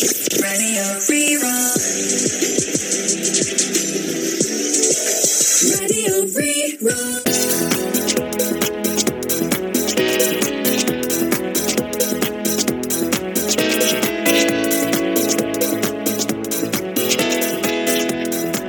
Radio Rí-Rá. Radio Rí-Rá.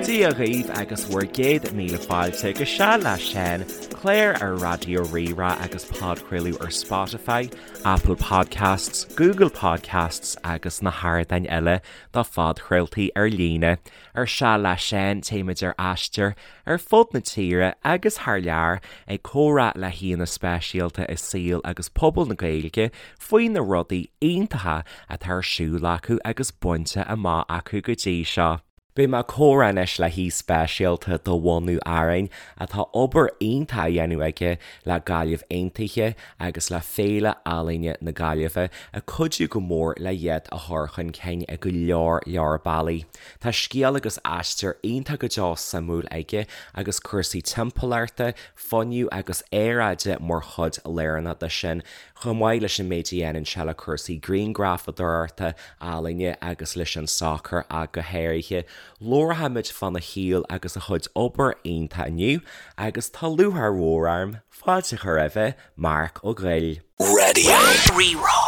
Dia dhaoibh agus bhur gcéad míle fáilte go Seal le Seán, clár ar Raidió Rí-Rá agus podchraoladh ar Spotify, Apple Podcasts, Google Podcasts agus na hardáin eile do phodchraoltaí ar líne. Ar Seal le Seán téimid ar aistear ar fud na tíre agus thar lear ag comhrá le haíonna speisialta i saol agus pobal na Gaeilge faoi na rudaí iontacha atá ar siúl acu agus bainte amach acu go dtí seo. Beidh mé ag comhrá anois le haoi speisialta de bhunadh Árainn atá obair iontach á dhéanamh aige le Gaillimh Aontaithe agus le Féile Ealaíne na Gaillimhe ag cuidiú go mór le iad a chur chun cinn i go leor leor bealaí. Tá scéal agus aistear iontach go deo suimiúil aige agus cúrsaí timpeallachta, fuinnimh agus aeráide mar chuid lárnach de sin, chomh maith leis an méid a dhéanann sé le cúrsaí grianghrafadóireachta, ealaíne agus leis an sacar ach go háirithe. Labharfaimid fána shaol agus a chuid obair iontach inniu agus tá lúcháir mhór orm fáilte a chur roimhe, Marc Ó Goill. Radio Rí-Rá.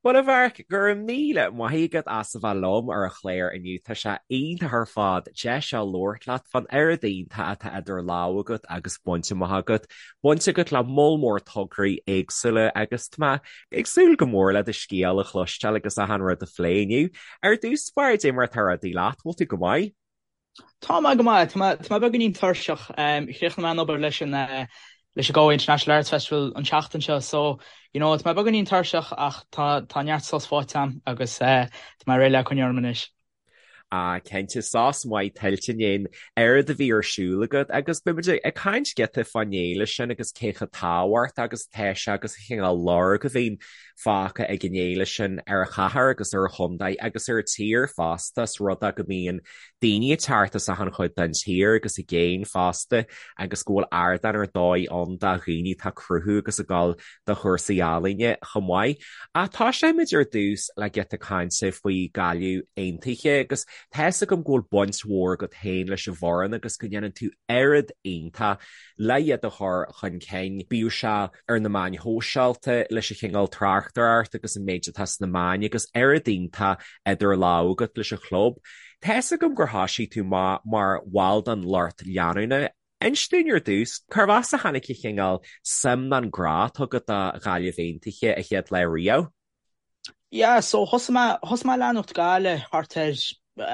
Bhuel a Mharc, go raibh míle maith agat as a bheith liom ar an chlár inniu. Tá sé iontach ar fad deis a labhairt leat fán oiread iontach atá idir lámha agat agus bainte amach agat. Baint agat le moll mór tograí éagsúla agus tá mé ag súil go mór le do scéal a chloisteáil agus achan rud a phlé inniu. Ar dtús báire, cad é mar atá rudaí leat, bhfuil tú go maith? Tá mé go maith. Tá mé tá mé beagáinín tuirseach. Chríochnaigh mé an obair leis an leis an Galway International Arts Festival an tseachtain seo so you know tá mé beagáinín tuirseach ach tá tá neart sos faighte agam agus tá mé réidh le coinneáil orm anois. Ah cinnte, sos maith tuillte i ndiaidh an oiread a bhí ar siúl agat agus beidh muid ag caint giota fán fhéile sin agus cé chomh tábhachtach agus atá sé agus an cineál lorg a bhíonn fágtha ag an fhéile sin ar an chathair agus ar an chontae agus ar an tír fosta, is rud é go mbíonn daoine ag teacht as achan chuid den tír agus i gcéin fosta agus go bhfuil ardán ar dóigh ann do dhaoine atá ag cruthú agus ag dul do chúrsaí ealaíne chomh maith. Ach tosóimid ar dtús le giota cainte faoi Gaillimh Aontaithe agus tá fhios agam go bhfuil baint mhór agat féin leis an bhfoireann agus go ndéanann tú oiread iontach le iad a chur chun cinn, bíodh sé ar na meáin shóisialta, leis an chineál tráchtaireacht agus an méid atá sna meáin agus oiread iontach idir lámha agat leis an chlub. Tá fhios agam gur thoisigh tú amach mar bhall den lucht leanúna. Inis dúinn ar dtús, cárb as a tháinig an chineál suim nó an grá atá agat do Ghaillimh Aontaithe an chéad lá riamh? Yeah, so thosaigh mé, thosaigh mé ag leanacht Gaillimh thart ar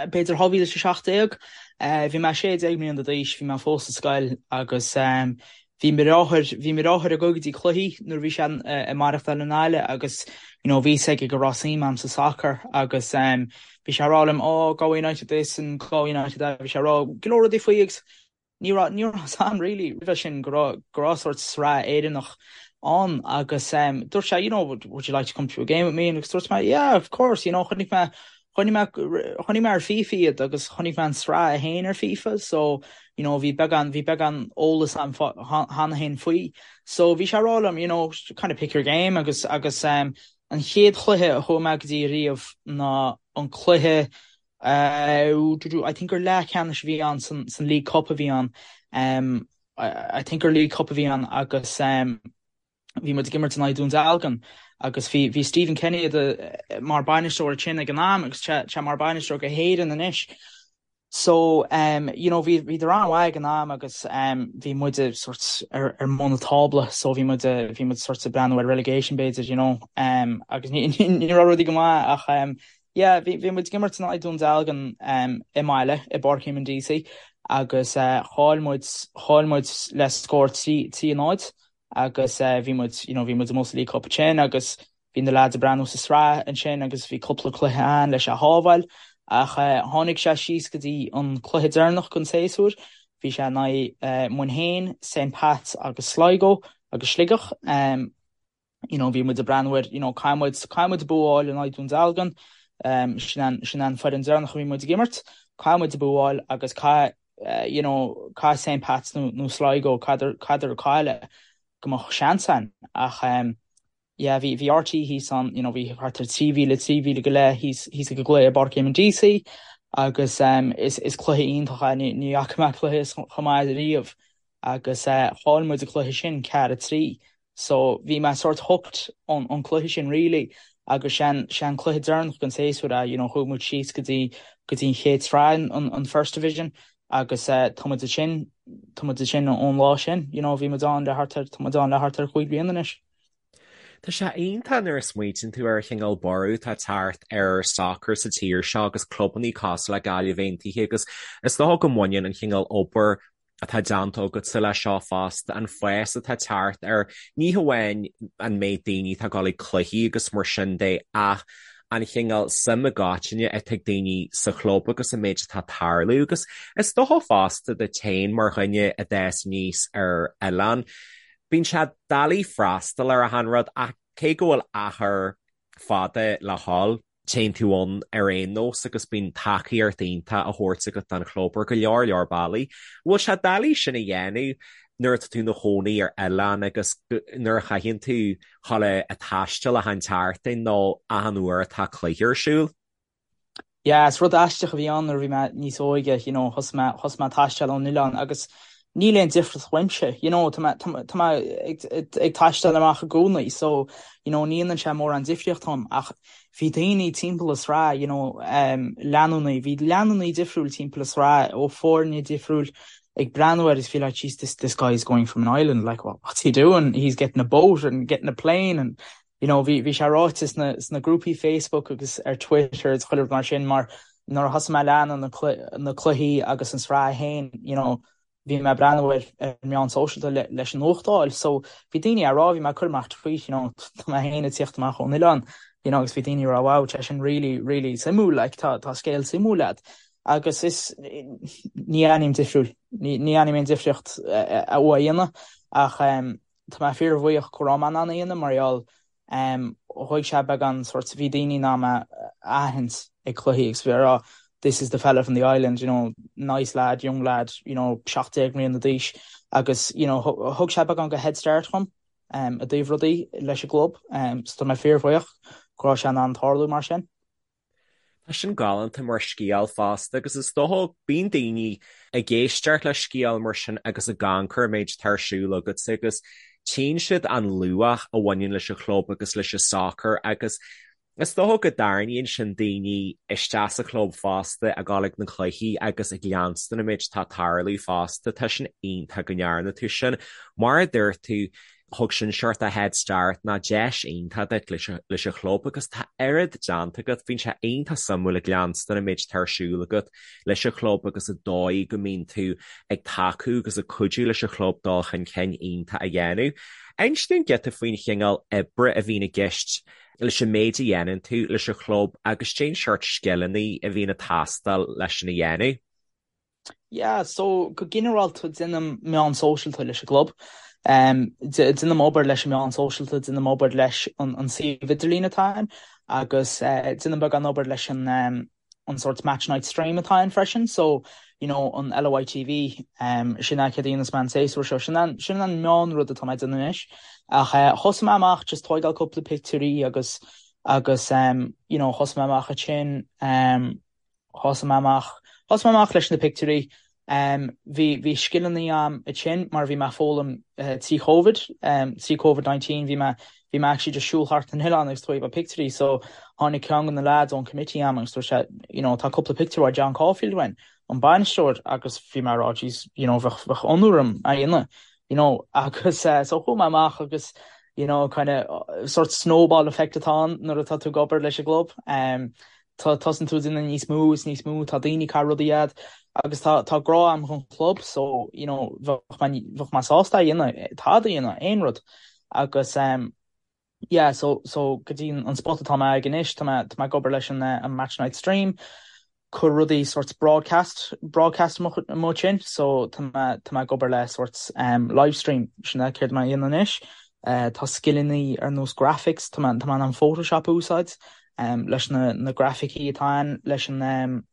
b'fhéidir 2017. Bhí mé 16 mbliana d'aois, bhí mé fós sa scoil agus bhí mo dheartháir, bhí mo dheartháir ag dul go dtí cluichí nuair a bhí sé ag maireachtáil i nGaillimh agus you know bhí fhios aige go raibh suim a'm sa soccer agus bhí sé ag rá liom oh Galway United this and Galway United that, bhí sé ag rá go leor rudaí faoi agus Ní raibh, ní raibh fhios a'm really roimhe sin go raibh, go raibh sórt sraith Éireannach ann agus em dúirt sé you know would, would you like to come to a game with me agus dúirt mé yeah of course you know chonaic mé, chonaic mé, chonaic mé ar FIFA iad agus chonaic mé an sraith a haon ar FIFA so you know bhí beagán, bhí beagán eolas a'm cheana féin faoi. So bhí sé ag rá liom you know kind of pick your game agus, agus em an chéad chluiche a chuaigh mé go dtí riamh ná an cluiche I think gur leathcheannais a bhí ann san League Cup a bhí ann. I think gur League Cup a bhí ann agus bhí muid ag imirt in aghaidh Dún Dealgan agus bhí bhí Stephen Kenny mar bainisteoir ansin ag an am agus tá sé mar bainisteoir go hÉireann anois. So you know bhí bhíodar an-mhaith ag an am agus bhí muide sort ar ar mbun an tábla so bhí muid bhí muid sort ag breathnú ar relegation b'fhéidir you know agus ní ní raibh rudaí go maith ach Yeah, bhí bhí muid ag imirt in aghaidh Dún Dealgan i mbaile i bPáirc Eamonn Deacy agus chaill muid chaill muid le scór 3 3 0 agus bhí muid you know bhí muid amuigh sa League Cup ansin agus bhí na lads ag breathnú sa sraith ansin agus bhí cúpla cluiche ann leis a shábháil ach tháinig sé síos go dtí an cluiche deireanach den séasúr bhí sé in aghaidh Muirthemne, St Pats agus Sligo agus Sligeach. you know, bhí muid ag breathnú ar, you know, caithfidh muid, caithfidh muid bua a fháil in aghaidh Dún Dealgan, um, sin an, sin an foireann deireanach a bhí muid ag imirt, caithfidh muid bua a fháil agus caithfidh, eh, you know, caithfidh St Pats nó, nó Sligo, caithfidh, caithfidh cailleadh go mbeadh seans ann ach, um, Yeah, bhí, bhí RTÉ thíos ann, you know, bhí thart ar 3,000, 3,000 go leith thíos, thíos ag an gcluiche i bPáirc Éamonn Deacy agus um, is, is cluiche iontach é, ní, ní fhaca mé cluiche chomh maith riamh agus eh, chaill muid an cluiche sin 4-3 so bhí mé sort hooked ón, ón cluiche sin really agus sé, sé an cluiche deireanach den séasúr é, you know, chuaigh muid síos go dtí, go dtí an chéad sraith, an, an First Division agus eh, tá muid ansin, tá muid ansin ón lá sin, you know, bhí muid ann le thart ar, tá muid ann le thart ar chúig bliana anois. Tá sé iontach nuair a smaoitíonn tú ar an chineál borradh atá ag teacht ar sacar sa tír seo agus clubannaí cosúil le Gaillimh Aontaithe agus is dócha go mbaineann an chineál obair atá déanta agatsa leis seo fosta, an fás atá ag teacht ar ní hamháin an méid daoine atá ag dul ag cluichí agus mar sin de ach an chineál suim i gcoitinne atá ag daoine sa chlub agus an méid atá ag tarlú agus is dócha fosta duit féin mar dhuine a d'fhás aníos ar oileán. Bíonn sé doiligh freastal ar achan rud ach cé go bhfuil achar fada le dhul, téann tú ann ar aon nós agus bíonn tacaíocht iontach á thabhairt agat don chlub ar go leor leor bealaí. Bhfuil sé doiligh sin a dhéanamh nuair atá tú ina chónaí ar oileán agus nuair a chaitheann tú dhul ag taisteal achan tseachtain nó achan uair atá cluiche ar siúl? Yeah, is rud aisteach a bhí ann nuair a bhí mé níos óige, you know, thosaigh mé, thosaigh mé ag taisteal ón oileán agus níl aon difríocht uaimse, you know, tá mé, tá mé, tá mé ag, ag taisteal amach i gcónaí so, you know, ní dhéanann sé mórán difríocht dom ach bhí daoine timpeall an sraith, you know, um, leanúnaí, bhí leanúnaí difriúil timpeall an sraith ó foirne difriúil ag breathnú air is bhí like, jeez, this, this guy is going from an island, like, what, what's he doing? He's getting a boat and getting a plane and you know, bhí, bhí sé ráite sna, sna grúpaí Facebook agus ar Twitter is chuile rud mar sin mar nuair a thosaigh mé ag leanúint na clu, na cluichí agus an sraith féin, you know, bhí mé ag breathnú ar, ar meán sóisialta le, leis an nuacht a fháil. So bhí daoine á rá, bhí mé ag cur amach tweet, you know, tá mé féin ag tíocht amach ón oileán, you know, agus bhí daoine ag rá, wow, tá sin really, really suimiúil, like, tá, tá scéal suimiúil agat. Agus is, ní aithním difriúil, ní, ní aithním aon difríocht a, a, a dhéanamh ach, um, Tá mé fíorbhuíoch go raibh mé in ann a dhéanamh mar gheall thóg sé beagán sórt, bhí daoine in ann mé a aithint ag cluichí agus bhí á rá this is the fella from the island, you know, nice lad, young lad, you know, 17 mbliana d'aois agus you know thug sé beagán de head start dhom i dtaobh rudaí leis an gclub so tá mé fíorbhuíoch go raibh sé in ann tarlú mar sin. Tá sin galánta mar scéal fosta agus is dócha bíonn daoine ag éisteacht le scéal mar sin agus ag amharc ar an méid atá ar siúl agatsa agus tchíonn siad an luach a bhaineann leis an chlub agus leis an sacar agus is dócha go dtarraingíonn sin daoine isteach sa chlub fosta ag dul ag na cluichí agus ag leanstan an méid atá ag tarlú fosta. Tá sin iontach go ndearna tú sin. Mar a dúirt tú, Thug sin sórt de head start ná deis iontach duit leis an chlub agus tá oiread déanta agat. Bíonn sé iontach suimiúil ag leanstan an méid atá ar siúl agat leis an chlub agus an dóigh go mbíonn tú ag tacú agus ag cuidiú leis an chlub dul chun cinn iontach a dhéanamh. Inis dúinn giota faoin chineál oibre a bhíonn i gceist leis an méid a dhéanann tú leis an chlub agus cén seort scileanna a bhíonn ag teastáil leis sin a dhéanamh. Yeah, so go ginearálta déanaim meán sóisialta leis an gclub. Déanaim obair leis an meán sóisialta, déanaim obair leis an suíomh idirlín atá ann agus déanaim beagán obair leis an an sort match night stream atá ann freisin. So, you know, an LOI TV, sin é céard a dhéanas mé an séasúr seo. Sin an sin an meán rud atá mé ag déanamh anois. Ach thosaigh mé amach just tóigeáil cúpla pictiúirí agus agus you know, thosaigh mé amach ansin Thosaigh mé amach, thosaigh mé amach leis na pictiúirí. Bhí, bhí scileanna a'm ansin mar bhí mé ag foghlaim trí Covid, trí Covid 19, bhí mé, bhí mé actually just siúl thart an oileán agus tóigeáil pictiúirí so tháinig ceann de na lads ón committee a'm agus dúirt sé, you know, tá cúpla pictiúr ó John Caulfield uainn, an bainisteoir agus bhí mé ag rá jeez, you know, bheadh, bheadh onóir orm é a dhéanamh, you know, agus so chuaigh mé amach agus you know, kind of sort snowball effect atá ann nuair atá tú ag obair leis an gclub. Tá, tosaíonn tú ag déanamh níos mó is níos mó, tá daoine ag caitheamh rudaí a'd agus tá, tá grá a'm dhon chlub so, you know, bheadh mé, bheadh mé sásta é a dhéanamh, tada a dhéanamh, aon rud. Agus ehm, yeah, so, so go dtí an spot atá mé ag anois, tá mé, tá mé ag obair leis an eh, an Match Night Stream, cur rudaí sort broadcast, broadcast amuigh ansin, so tá mé, tá mé ag obair le sort ehm, live stream, sin é céard tá mé a dhéanamh anois. Eh, tá scileanna ar nós graphics, tá mé, tá mé in ann Photoshop a úsáid, leis na grafaicí atá ann, leis an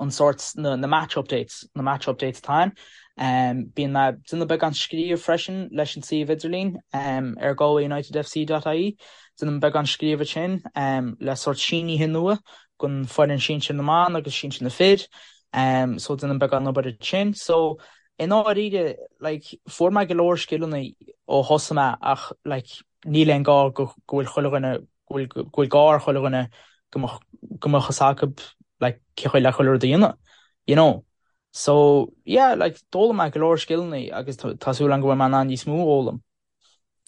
an sórt na na match updates, na match updates atá ann. Bíonn mé ag déanamh beagán scríobh freisin leis an suíomh idirlín ar galwayunitedfc.ie. Déanaim beagán scríobh ansin le sórt sínithe nua don foireann sinsir na mban agus sinsir na fir. So déanaim beagán obair ansin. So i ndáiríre like fuair mé go leor scileanna ó thosaigh mé ach like níl aon gá go go bhfuil chuile dhuine go bhfuil go bhfuil gá ar chuile dhuine go mbeadh go mbeadh fhios acu like cén chaoi le chuile rud a dhéanamh you know. So yeah like d'fhoghlaim mé go leor scileanna agus tá súil agam go bhfuil mé in ann níos mó a fhoghlaim.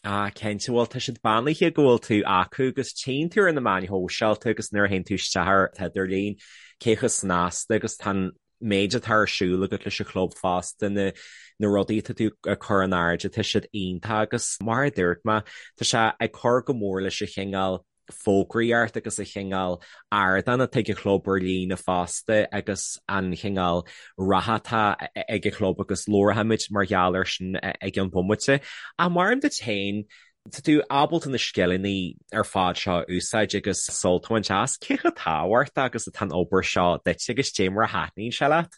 Ah cinnte, bhuel tá siad beannaithe go bhfuil tú acu agus tchíonn tú ar na meáin shóisialta agus nuair a théann tú isteach ar an idirlíon cé chomh snasta agus tá an méid atá ar siúl agat leis an chlub fosta, na na rudaí atá tú ag cur in airde, tá siad iontach agus mar a dúirt mé, tá sé ag cur go mór leis an chineál fógraíocht agus an chineál ardán atá ag an chlub ar líne fosta agus an chineál ratha atá ag an chlub agus labharfaimid mar gheall air sin i gceann bomaite. Ach mar duit féin, tá tú ábalta na scileanna ar fad seo a úsáid agus sult a bhaint as. Cé chomh tábhachtach agus atá an obair seo duit agus cad é mar a thaitníonn sé leat?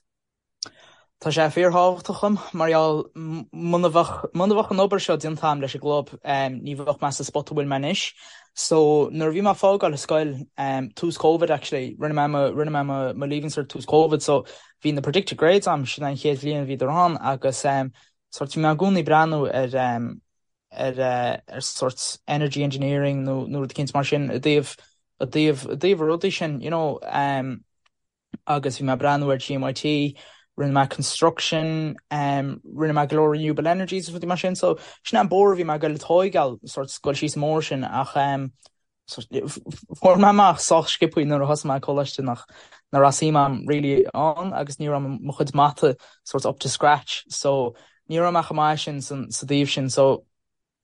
Tá sé fíorthábhachtach dom mar gheall muna bheadh muna bheadh an obair seo déanta agam leis an gclub ní bheadh mé sa spot a bhfuil mé anois. So nuair a bhí mé ag fágáil an scoil, tús Covid actually, rinne mé mo rinne mé mo mo leaving cert tús Covid so bhí na predicted grades agam, sin an chéad bhliain a bhíodar ann agus sort bhí mé i gcónaí ag breathnú ar ar ar sort energy engineering nó nó rud eicínt mar sin i dtaobh i dtaobh i dtaobh na rudaí sin you know. agus bhí mé ag breathnú ar GMIT, rinne mé construction, rinne mé go leor renewable energies agus rudaí mar sin, so sin é an bóthar a bhí mé ag goil a tóigeáil, sort goil síos an bóthar sin ach fuair mé amach sách sciobthaí nuair a thosaigh mé coláiste nach nach raibh suim agam really ann agus ní raibh mo chuid mata sort up to scratch so ní raibh mé chomh maith sin sa dtaobh sin so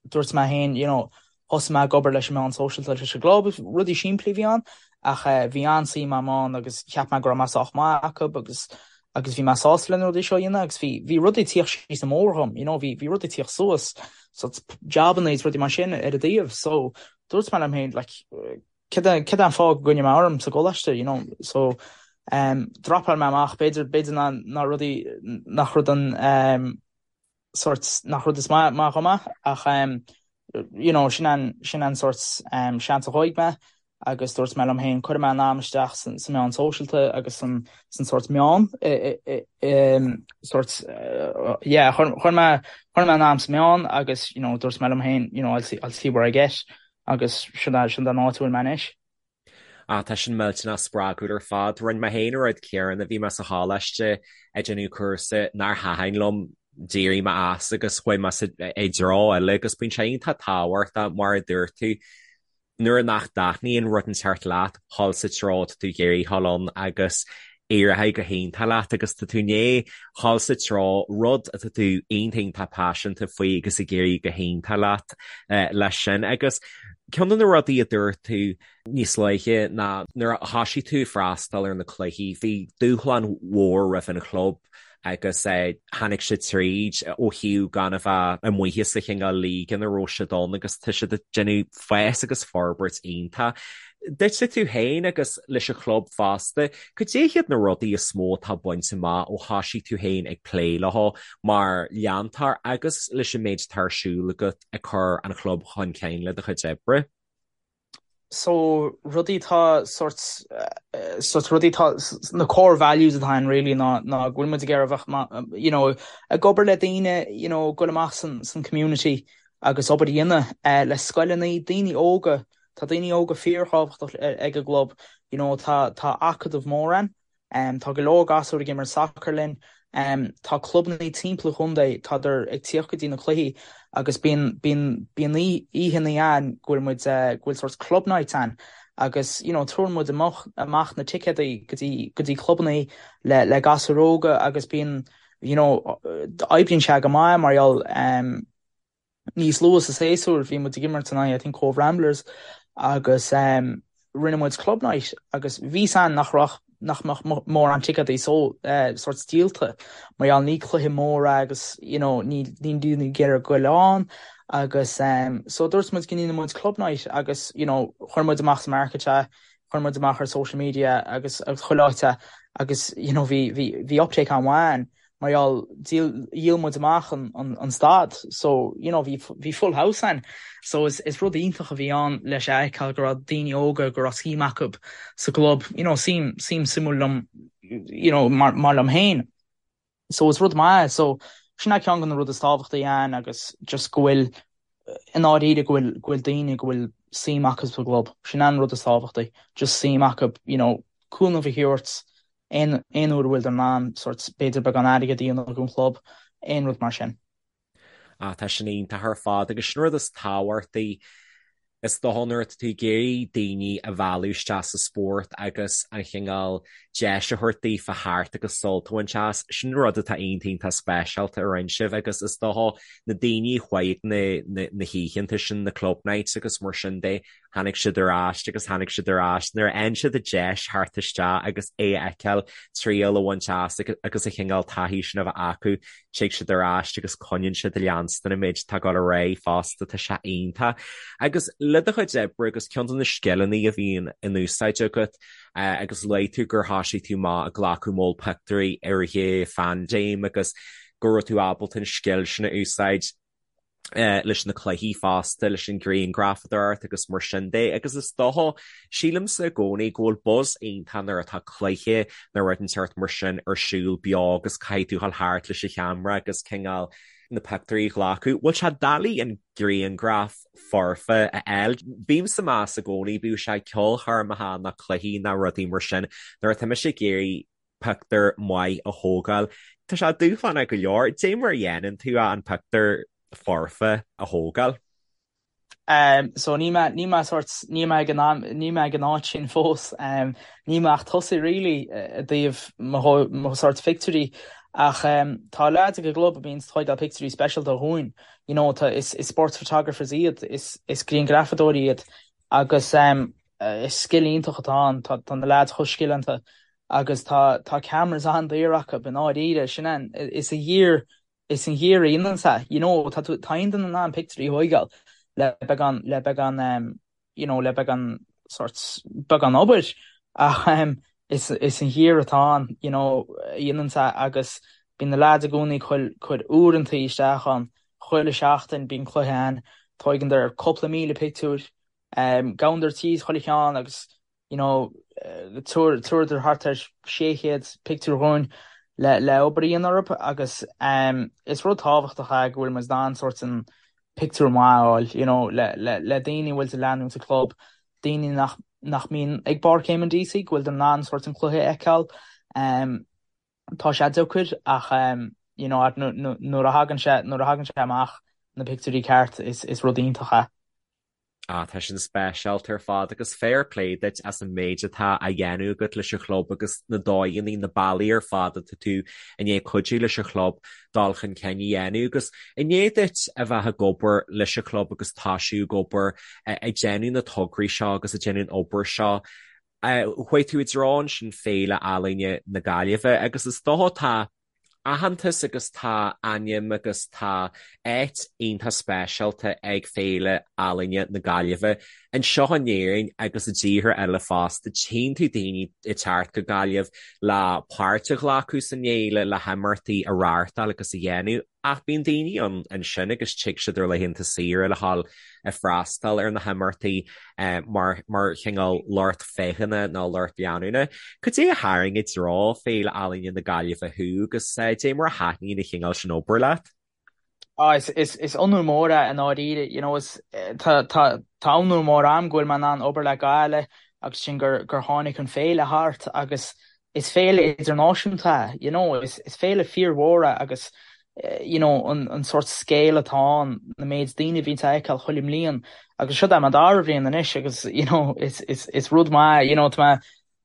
dúirt mé féin, you know, thosaigh mé ag obair leis an meán sóisialta leis an gclub, rudaí simplí a bhí ann ach bhí an-suim agam ann agus cheap mé go raibh mé sách maith acu agus agus bhí mé sásta le na rudaí seo a dhéanamh agus bhí bhí rudaí ag tíocht síos an mbóthar dhom, you know, bhí bhí rudaí ag tíocht suas, so jabanna is rudaí mar sin ar an dtaobh so dúirt mé liom féin like cad é cad é an fáth go gcoinneoidh mé orm sa gcoláiste, you know, so um dropáil mé amach b'fhéidir b'fhéidir ná ná rudaí nach rud an um sort nach rud is maith maith dhom é ach you know sin an sin an sort seans a thóig mé agus dúirt mé liom féin cuirfidh mé an am isteach san sa meán sóisialta agus san san sort meán sort yeah chuir chuir mé chuir mé an am sa meán agus you know dúirt mé liom féin you know I'll see I'll see where I get agus sin sin an áit a bhfuil mé anois. Ah, tá sin millteanach spreagúil ar fad. Rinne mé féin an rud céanna, bhí mé sa choláiste ag déanamh cúrsa nár thaitin liom, d'éirigh mé as agus chuaigh mé i dtreo eile agus bíonn sé iontach tábhachtach mar a dúirt tú, nuair nach dtaitníonn rud inteacht leat, dhul sa treo atá tú ag iarraidh dhul ann agus éireoidh go hiontach leat agus tá tú i ndiaidh dhul sa treo rud atá tú iontach iontach paiseanta faoi agus ag éirí go hiontach leat leis sin. Agus ceann de na rudaí a dúirt tú níos luaithe ná nuair a thosaigh tú ag freastal ar na cluichí bhí dúshlán mhór roimh an chlub agus tháinig siad tríd ó thaobh gan a bheith amuigh sa chineál league ina raibh siad ann agus tá siad ag déanamh fás agus forbairt iontach. Duitse tú féin agus leis an chlub fosta, cad é hiad na rudaí is mó atá bainte amach ó thosaigh tú féin ag plé leo mar leantóir agus leis an méid atá ar siúl agat ag cur an chlub chun cinn le do chuid oibre? So rudaí atá sort sort rudaí atá na core values atá ann really ná ná go bhfuil muid ag iarraidh a bheith you know ag obair le daoine you know goil amach san san community agus obair a dhéanamh le scoileanna daoine óga tá daoine óga fíorthábhachtach ag an gclub you know tá tá acadamh mór ann Tá go leor gasúir ag imirt sacair linn. Tá clubanna timpeall an chontae, tádar ag tíocht go dtí na cluichí agus bíonn bíonn bíonn oícheanna ann go bhfuil muid go bhfuil sort club nights ann agus you know tabharann muid amach amach na ticéadaí go dtí go dtí clubanna le le gasúir óga agus bíonn you know oibríonn sé go maith mar gheall Níos luaithe sa séasúr bhí muid ag imirt in aghaidh I think Cobh Ramblers agus rinne muid club night agus bhí a fhios againn nach raibh nach mbeadh mórán ticéadaí so sort díolta mar gheall ní cluiche mór é agus you know ní níl daoine ag iarraidh goil ann agus so dúirt muid go ndéanfaidh muid club night agus you know chuir muid amach sa market é. Chuir muid amach ar social media agus agus chuile áit é agus you know bhí bhí bhí uptake an-mhaith ann mar gheall díol dhíol muid amach an an an staid so you know bhí bhí full house ann. So is is rud iontach a bhí ann leis a fheiceáil go raibh daoine óga go raibh suim acu sa gclub you know suim suim suimiúil liom you know mar mar liom féin. So is rud maith é. So sin é ceann de na rudaí is tábhachtaí ann agus just go bhfuil i ndáiríre go bhfuil go bhfuil daoine go bhfuil suim acu sa gclub. Sin é an rud is tábhachtaí. Just suim acu you know cúnamh a thabhairt aon aon uair a bhfuil in ann sort b'fhéidir beagán airgead a dhéanamh don chlub, aon rud mar sin. Ah, tá sin iontach ar fad agus sin rud is tábhachtaí is dócha nuair atá tú ag iarraidh daoine a mhealladh isteach sa spórt agus an chineál deis a thabhairt daofa theacht agus sult a bhaint as, sin rud atá iontach iontach speisialta a rinne sibh agus is dócha na daoine a chuaigh ag na, na, na hoícheanta sin, na club nights agus mar sin de, Tháinig siad ar ais agus tháinig siad ar ais nuair a fhaigheann siad an deis theacht isteach agus é a fheiceáil, triail a bhaint as agus an chineál taithí sin a bheith acu, tig siad ar ais agus coinníonn siad ag leanstan an méid atá ag dul ar aghaidh fosta, tá sé iontach. Agus le do chuid oibre agus ceann de na scileanna a bhíonn in úsáid agat agus luaigh tú gur thosaigh tú amach ag glacadh moll pictiúirí i rith an phaindéim agus go raibh tú ábalta an scil sin a úsáid. leis na cluichí fosta, leis an ghrianghrafadóireacht agus mar sin de agus is dócha, sílimse i gcónaí go bhfuil buzz iontach nuair atá cluiche nó rud inteacht mar sin ar siúl beo agus caithfidh tú dhul thart leis an cheamara agus cineál na pictiúirí a ghlacadh. Bhfuil sé doiligh an grianghraf foirfe a fháil? Bímse ag meas i gcónaí, bíodh sé ceolchoirmeacha nó cluichí nó rudaí mar sin, nuair atá mise ag iarraidh pictiúr maith a thógáil. Tá sé dúshlánach go leor. Dé mar a dhéanann tú an pictiúr foirfe a thógáil? So níl mé, níl mé sort, níl mé ag an am, níl mé ag an áit sin fós. Níl mé ach tosaithe really i dtaobh mo, mo sort pictiúirí ach tá leaids ag an gclub a bhíonns ag tóigeáil pictiúirí speisialta dhúinn. You know, tá, is, is sports photographers iad, is, is grianghrafadóirí iad agus is scil iontach atá ann, tá, tá na leaids chomh scileanta agus tá tá cameras an-daor acu i ndáiríre, sin an, is an gear, is an gear a dhéananns é, you know, tá tú, tá aon duine in ann pictiúirí a thóigeáil le beagán, le beagán em, you know, le beagán sort, beagán obair ach em is, is an gear atá ann, you know, a dhéananns é agus bíonn na leaids i gcónaí ag cur, cur uaireantaí isteach ann, chuile sheachtain bíonn cluiche ann, tóigeandar cúpla míle pictiúr, em, gabhandar tríd chuile cheann agus you know, tabharadar thart ar 600 pictiúr dhúinn le le obair a dhéanamh orthu agus is rud tábhachtach é go bhfuil muid in ann sort an pictiúr maith a fháil, you know, le le le daoine a bhfuil ag leanúint an club, daoine nach nach mbíonn ag Páirc Éamonn Deacy, go bhfuil in ann sort an cluiche a fheiceáil. Tá sé deacair ach you know, nuair a thagann sé nuair a thagann sé amach na pictiúirí ceart is is rud iontach é. Ah, tá sin speisialta ar fad agus fair play duit as an méid atá á dhéanamh agat leis an chlub agus na dóigheanna, na bealaí ar fad atá tú i ndiaidh cuidiú leis an chlub dul chun cinn a dhéanamh agus i ndiaidh duit a bheith ag obair leis an chlub agus toisiú ag obair ag déanamh na tograí seo agus ag déanamh an obair seo, chuaigh tú i dtreo ansin Féile Ealaíne na Gaillimhe agus is dócha tá aitheantas agus tá ainm agus tá áit iontach speisialta ag Féile Ealaíne na Gaillimhe anseo in Éirinn agus i dtíortha eile fosta. Tchíonn tú daoine ag teacht go Gaillimh le páirt a ghlacadh san fhéile, le himeachtaí a reáchtáil agus a dhéanamh. Ach bíonn daoine ann ansin agus tig siad ar laethanta saoire le dhul ag freastal ar na himeachtaí mar mar chineál lucht féachana nó lucht leanúna. Cad é a tharraing i dtreo Féile Ealaíne na Gaillimhe thú agus dé mar a thaitníonn an chineál sin obair leat? Ah, is, is, is onóir mór é i ndáiríre, you know, is, tá, tá, tá onóir mór a'm go bhfuil mé in ann obair le Gaillimh agus sin gur, gur tháinig an féile thart agus is féile idirnáisiúnta é, you know, is is féile fíormhór é agus you know an an sórt scale atá ann, na méid daoine a bhíonn a fheiceáil chuile mbliain agus seo é mo dara bhliain anois agus you know is is is rud maith you know tá mé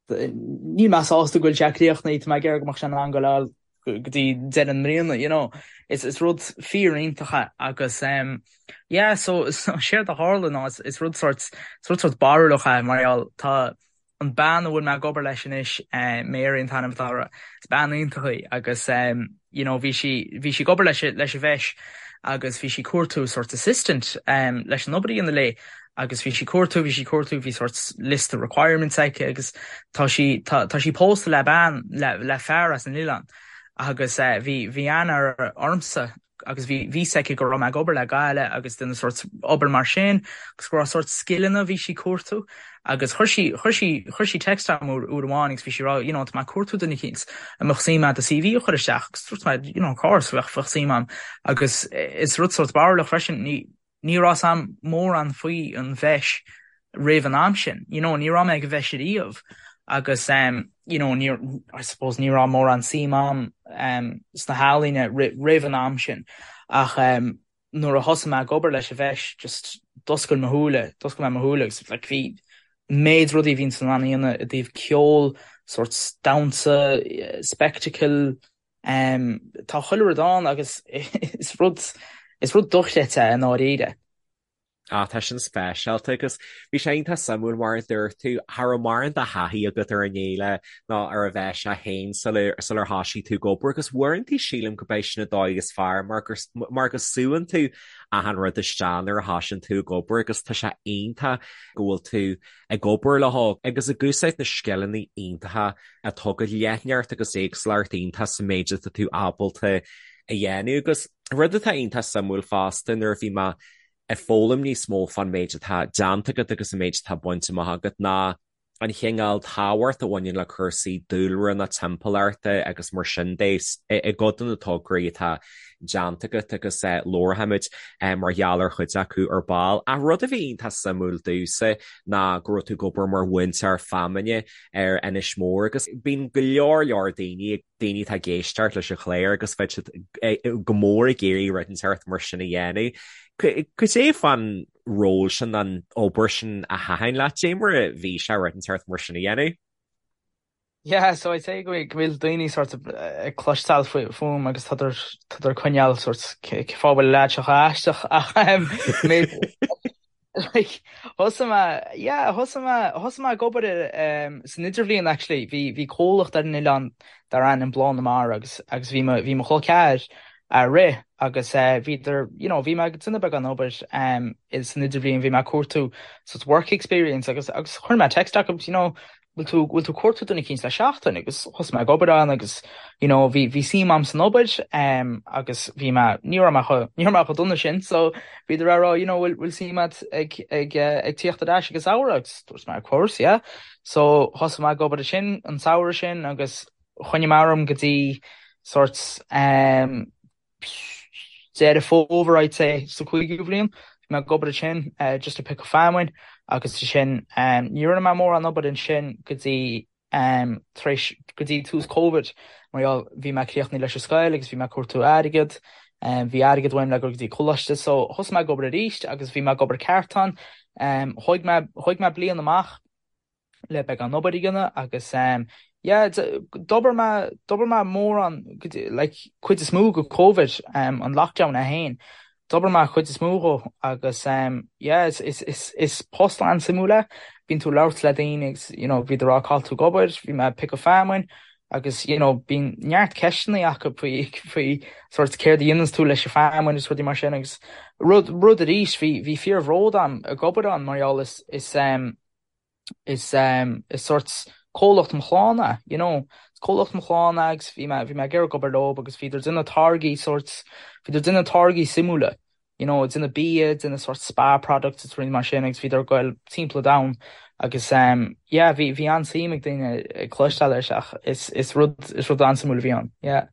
níl mé sásta go bhfuil sé críochnaithe, tá mé ag iarraidh go mbeadh sé in ann goil go dtí deireadh na mbliana you know. Is is rud fíor-iontach é agus um yeah so so séard a tharla ná is is rud sórt is rud sórt barúlach é mar gheall tá an bean a bhfuil mé ag obair leis anois, Mary an t-ainm atá uirthi, is bean iontach í agus you know bhí sí, bhí sí ag obair leis, leis an bhfeis agus bhí sí ag cuartú sort assistant leis an obair a dhéanamh léi. agus bhí sí cuartú, bhí sí cuartú, bhí sort liosta requirements aici agus tá sí, tá, tá sí pósta le bean, le, le fear as an oileán agus eh, bhí, bhí aithne ormsa agus bhí, bhí fhios aici go raibh mé ag obair le Gaillimh agus déanamh sort obair mar sin agus go raibh sort scileanna bhí sí cuartú agus chuir sí, chuir sí, chuir sí text agam uair, uair amháin agus bhí sí rá, you know, tá mé ag cuartú duine eicínt an mbeadh suim agat do CV a chur isteach agus dúirt mé, you know, of course, bheadh, bheadh suim agam agus is rud sort barúlach freisin, ní, Ní raibh 's a'm mórán faoi an bhFeis roimh an am sin, you know, ní raibh mé ag an bhFeis ariamh agus em you know ní I suppose ní raibh mórán suim a'm em sna healaíona roimh an am sin ach em nuair a thosaigh mé ag obair leis an bhFeis just d'oscail mo shúile, d'oscail mé mo shúile agus like bhí méid rudaí a bhíonn tú in ann a dhéanamh i dtaobh ceol, sort damhsa, spectacle, Tá chuile rud ann agus is rud, is rud dochreidte é i ndáiríre. Ah, tá sin speisialta agus bhí sé iontach suimiúil mar a dúirt tú, cha raibh mórán de thaithí agat ar an fhéile ná ar an bhFeis é féin sular thoisigh tú ag obair agus uaireanta sílim go b'é sin an dóigh is fearr mar gur, mar go súann tú achan rud isteach nuair a thoisíonn tú ag obair agus tá sé iontach go bhfuil tú ag obair leo agus ag úsáid na scileanna iontacha atá agat, leithneacht agus éagsúlacht iontach sa méid atá tú ábalta a dhéanamh. Agus rud atá iontach suimiúil fosta nuair a bhí mé ag foghlaim níos mó fán méid atá déanta agat agus an méid atá bainte amach agat ná an chineál tábhacht a bhaineann le cúrsaí dúlra na timpeallachta agus mar sin de i gcuid de na tograí atá déanta agat agus labharfaimid mar gheall ar chuid acu ar ball. Ach rud a bhí iontach suimiúil domhsa ná go raibh tú ag obair mar mhúinteoir feamainne ar Inis Mór agus bíonn go leor leor daoine, daoine atá ag éisteacht leis an chlár agus bheadh siad go mór ag iarraidh rud inteacht mar sin a dhéanamh. Cad é fán ról sin, an obair sin a thaitin leat? Cad é mar a bhí sé rud inteacht mar sin a dhéanamh? Yeah, so I'd say go bhfuil daoine sort of ag cloisteáil fúm agus tá siad coinneáil sort cén fáth a bhfuil an leaid seo chomh aisteach ach like thosaigh mé yeah thosaigh mé thosaigh mé ag obair san idirbhliain actually bhí bhí comhlacht ar an oileán dar ainm Bláth na Mara agus agus bhí mo bhí mo chol ceathair á rith agus bhíodar you know bhí mé ag déanamh beagán obair san idirbhliain bhí mé ag cuartú sort work experience agus agus chuir mé text acu you know bhfuil tú, bhfuil tú ag cuartú duine eicínt le seachtain agus thosaigh mé ag obair ann agus you know bhí, bhí suim a'm san obair em agus bhí mé, ní raibh mé chomh, ní raibh mé chomh dona sin so bhíodar á rá you know bhfuil, bhfuil suim a'd ag, ag eh ag tíocht ar ais ag an samhradh agus dúirt mé of course yeah so thosaigh mé ag obair ansin an samhradh sin agus choinnigh mé orm go dtí sort em Deireadh Fómhair I'd say sa chúigiú bhliain. Bhí mé ag obair ansin just ag piocadh feamainn agus ansin ní rinne mé mórán obair ansin go dtí tar éis go dtí tús Covid mar gheall bhí mé críochnaithe leis an scoil agus bhí mé ag cuartú airgead. Bhí airgead uaim le dul go dtí coláiste so thosaigh mé ag obair arís agus bhí mé ag obair ceart ann. Thóg mé thóg mé bliain amach. le beagán obair a dhéanamh agus yeah d'obair mé d'obair mé mórán like cuid is mó go Covid an lockdown é féin d'obair mé cuid is mó dhó agus yeah is is is is post an-suimiúil é bíonn tú ag labhairt le daoine agus you know bhíodar ag rá cá bhfuil tú ag obair bhí mé ag piocadh feamainn agus you know bíonn neart ceisteanna acu faoi faoi sort céard a dhéananns tú leis an feamainn agus rudaí mar sin agus rud rud arís bhí bhí fíorbhród a'm ag obair ann mar gheall is is is is sort comhlacht mo chlann é, you know. Is comhlacht mo chlann é agus bhí mé bhí mé ag iarraidh obair leo agus bhíodar ag déanamh táirgí sort bhíodar ag déanamh táirgí suimiúla, you know, ag déanamh bia, ag déanamh sort spa products is rudaí mar sin agus bhíodar ag goil timpeall an domhain agus yeah bhí bhí an-suim ag daoine ag cloisteáil air ach is is rud is rud an-suimiúil a bhí ann, yeah.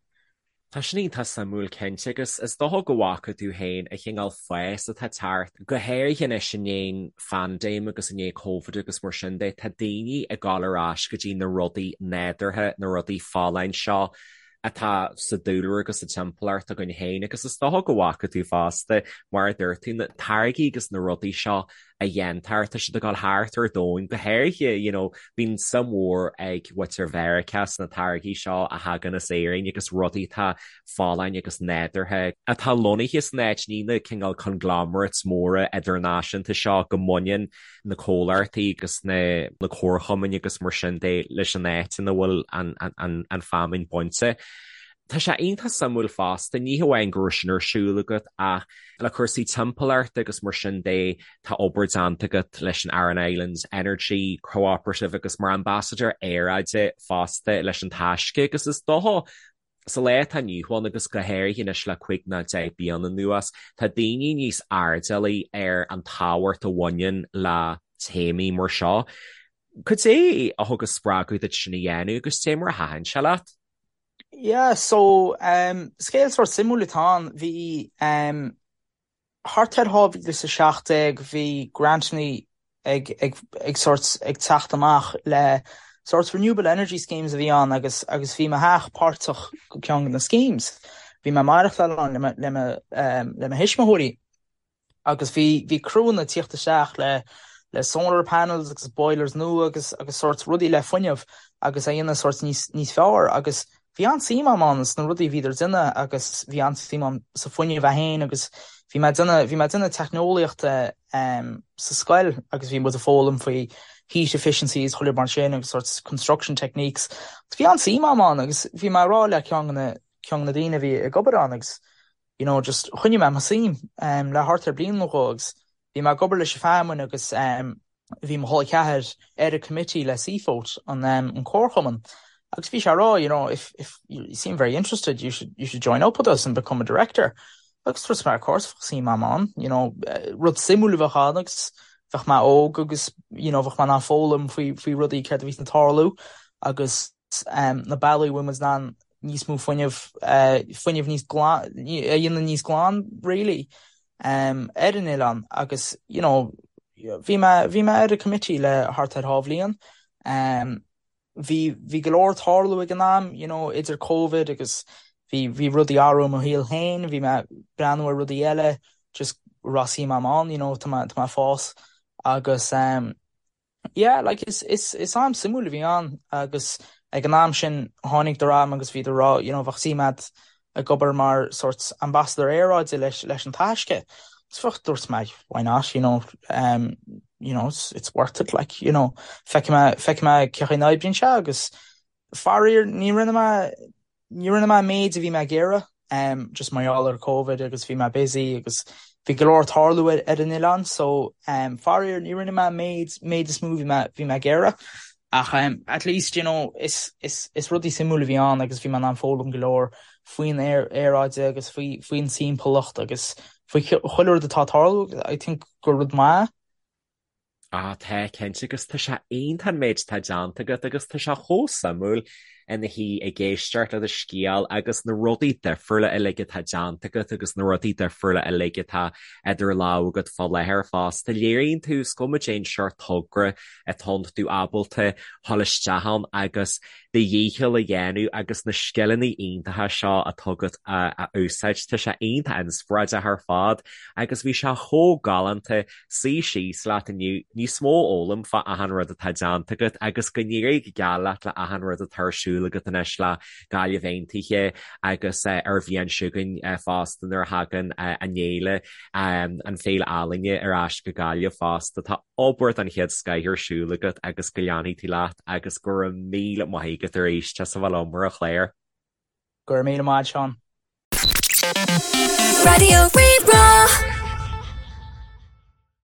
Tá sin iontach suimiúil cinnte agus is dócha go bhfaca tú féin an chineál fás atá ag teacht, go háirithe anois i ndiaidh an phaindéim agus i ndiaidh Covid agus mar sin de, tá daoine ag dul ar ais go dtí na rudaí nádúrtha, na rudaí folláin seo atá sa dúlra agus sa timpeallacht againn féin agus is dócha go bhfaca tú fosta, mar a dúirt tú, na táirgí agus na rudaí seo a dhéantar, tá siad ag dul thart ar domhan, go háirithe, you know, bíonn suim mhór ag muintir Mheiriceá sna táirgí seo a thagann as Éirinn agus rudaí atá folláin agus nádúrtha, atá lonnaithe san áit, ní na cineál conglomerates móra idirnáisiúnta seo go mbaineann na comhlachtaí agus na comharchumainn agus mar sin de leis an áit ina bhfuil an, an, an, an feamainn bainte. Tá sé iontach suimiúil fosta, ní hamháin go raibh sin ar siúl agat ach le cúrsaí timpeallachta agus mar sin de, tá obair déanta agat leis an Aran Islands Energy Cooperative agus mar ambasadóir aeráide fosta leis an Taisce agus is dócha sa lá atá inniu ann agus go háirithe anois le 5 nó 10 bliana anuas, tá daoine níos airdeallaí ar an tábhacht a bhaineann le téamaí mar seo. Cad é a thug an spreagadh duit sin a dhéanamh agus cad é mar a thaitin sé leat? Yeah, so um, scéal sórt suimiúil atá ann. Bhí um, thart ar 2017 bhí grantannaí ag, ag, ag sórt ag teacht amach le sórt renewable energy schemes a bhí ann agus, agus bhí mo theach páirteach go ceann de na schemes. Bhí mé ag maireachtáil ann le mo, le mo, um, le mo thuismitheoirí. agus bhí bhí criúnna ag tíocht isteach le le solar panels agus boilers nua agus agus sórt rudaí le fuinneamh agus a dhéanamh sórt níos níos fearr agus bhí an-suim agam ann sna rudaí a bhíodar ag déanamh agus bhí an-suim agam sa fuinneamh é féin agus bhí mé ag déanamh bhí mé ag déanamh teicneolaíochta um, sa scoil agus bhí muid ag foghlaim faoi heat efficiencies chuile mar sin agus sórt construction techniques. Bhí an-suim agam ann agus bhí mé ag rá le ceann de na ceann de na daoine a bhí ag obair ann agus you know, just choinnigh mé mo suim um, le thart ar bliain nó dhó agus bhí mé ag obair leis an feamainn agus um, bhí mo chol ceathar ar an committee le Seafoat an, um, an comharchumann agus bhí sé ag rá, you know, if, if you seem very interested, you should, you should join up with us and become a director. Agus dúirt mé, of course, bheadh suim agam ann, you know, eh, rud suimiúil a bheadh ann agus bheadh mé óg agus, you know, bheadh mé in ann foghlaim faoi, faoi rudaí céard a bhí ag tarlú agus na bealaí a bhfuil muid in ann níos mó fuinneamh, fuinneamh níos glan, a dhéanamh níos glan really ar an oileán agus you know bhí mé, bhí mé ar an committee le thart ar dhá bhliain. Bhí, bhí go leor ag tarlú ag an am you know idir Covid agus bhí, bhí rudaí ag athrú i mo shaol féin, bhí mé ag breathnú ar rudaí eile just raibh suim agam ann you know tá mé, tá mé ag fás agus Yeah, like is, is, is am suimiúil a bhí ann agus ag an am sin tháinig orm agus bhíodar ag rá, you know, bheadh suim agat ag obair mar sort ambassador aeráide leis, leis an Taisce. Agus bheadh, dúirt mé, why not, you know, um, you know, it's, it's worth it, like, you know, feicfidh mé, feicfidh mé cén chaoi a n-oibríonn sé agus faraor ní rinne mé, Ní rinne mé an méid a bhí mé ag iarraidh, just mar gheall ar Covid agus bhí mé busy agus bhí go leor ag tarlú ar an oileán so faraor ní rinne mé an méid, méid is mó bhí mé, bhí mé ag iarraidh. Ach at least you know is, is, is rudaí suimiúil a bhí ann agus bhí mé in ann foghlaim go leor faoin aeráide agus faoi, faoin timpeallacht agus faoi chuile rud atá ag tarlú. I think gur rud maith Ah, tá, cinnte, agus tá sé iontach an méid atá déanta agat agus tá sé chomh suimiúil ina shuí ag éisteacht le do scéal agus na rudaí difriúla uilig atá déanta agat agus na rudaí difriúla uilig atá idir lámha agat fá láthair fosta. Léiríonn tú, is cuma cén seort togra atá ann, tá tú ábalta dhul isteach ann agus do dhícheall a dhéanamh agus na scileanna iontacha seo atá agat a úsáid. Tá sé iontach inspioráideach ar fad agus bhí sé chomh galánta suí síos leat inniu, níos mó a fhoghlaim fá achan rud atá déanta agat agus go n-éirí go geal leat le achan rud atá ar siúl agat anois le Gaillimh Aontaithe agus ar bhliain seo chugainn fosta nuair a thagann an fhéile, an Féile Ealaíne ar ais go Gaillimh fosta. Tá obair den chéad scoith ar siúl agat agus go leanfaidh tú leat agus go raibh míle maith agat arís as a bheith liom ar an chlár. Go raibh míle maith, Seán. Raidió Rí-Rá.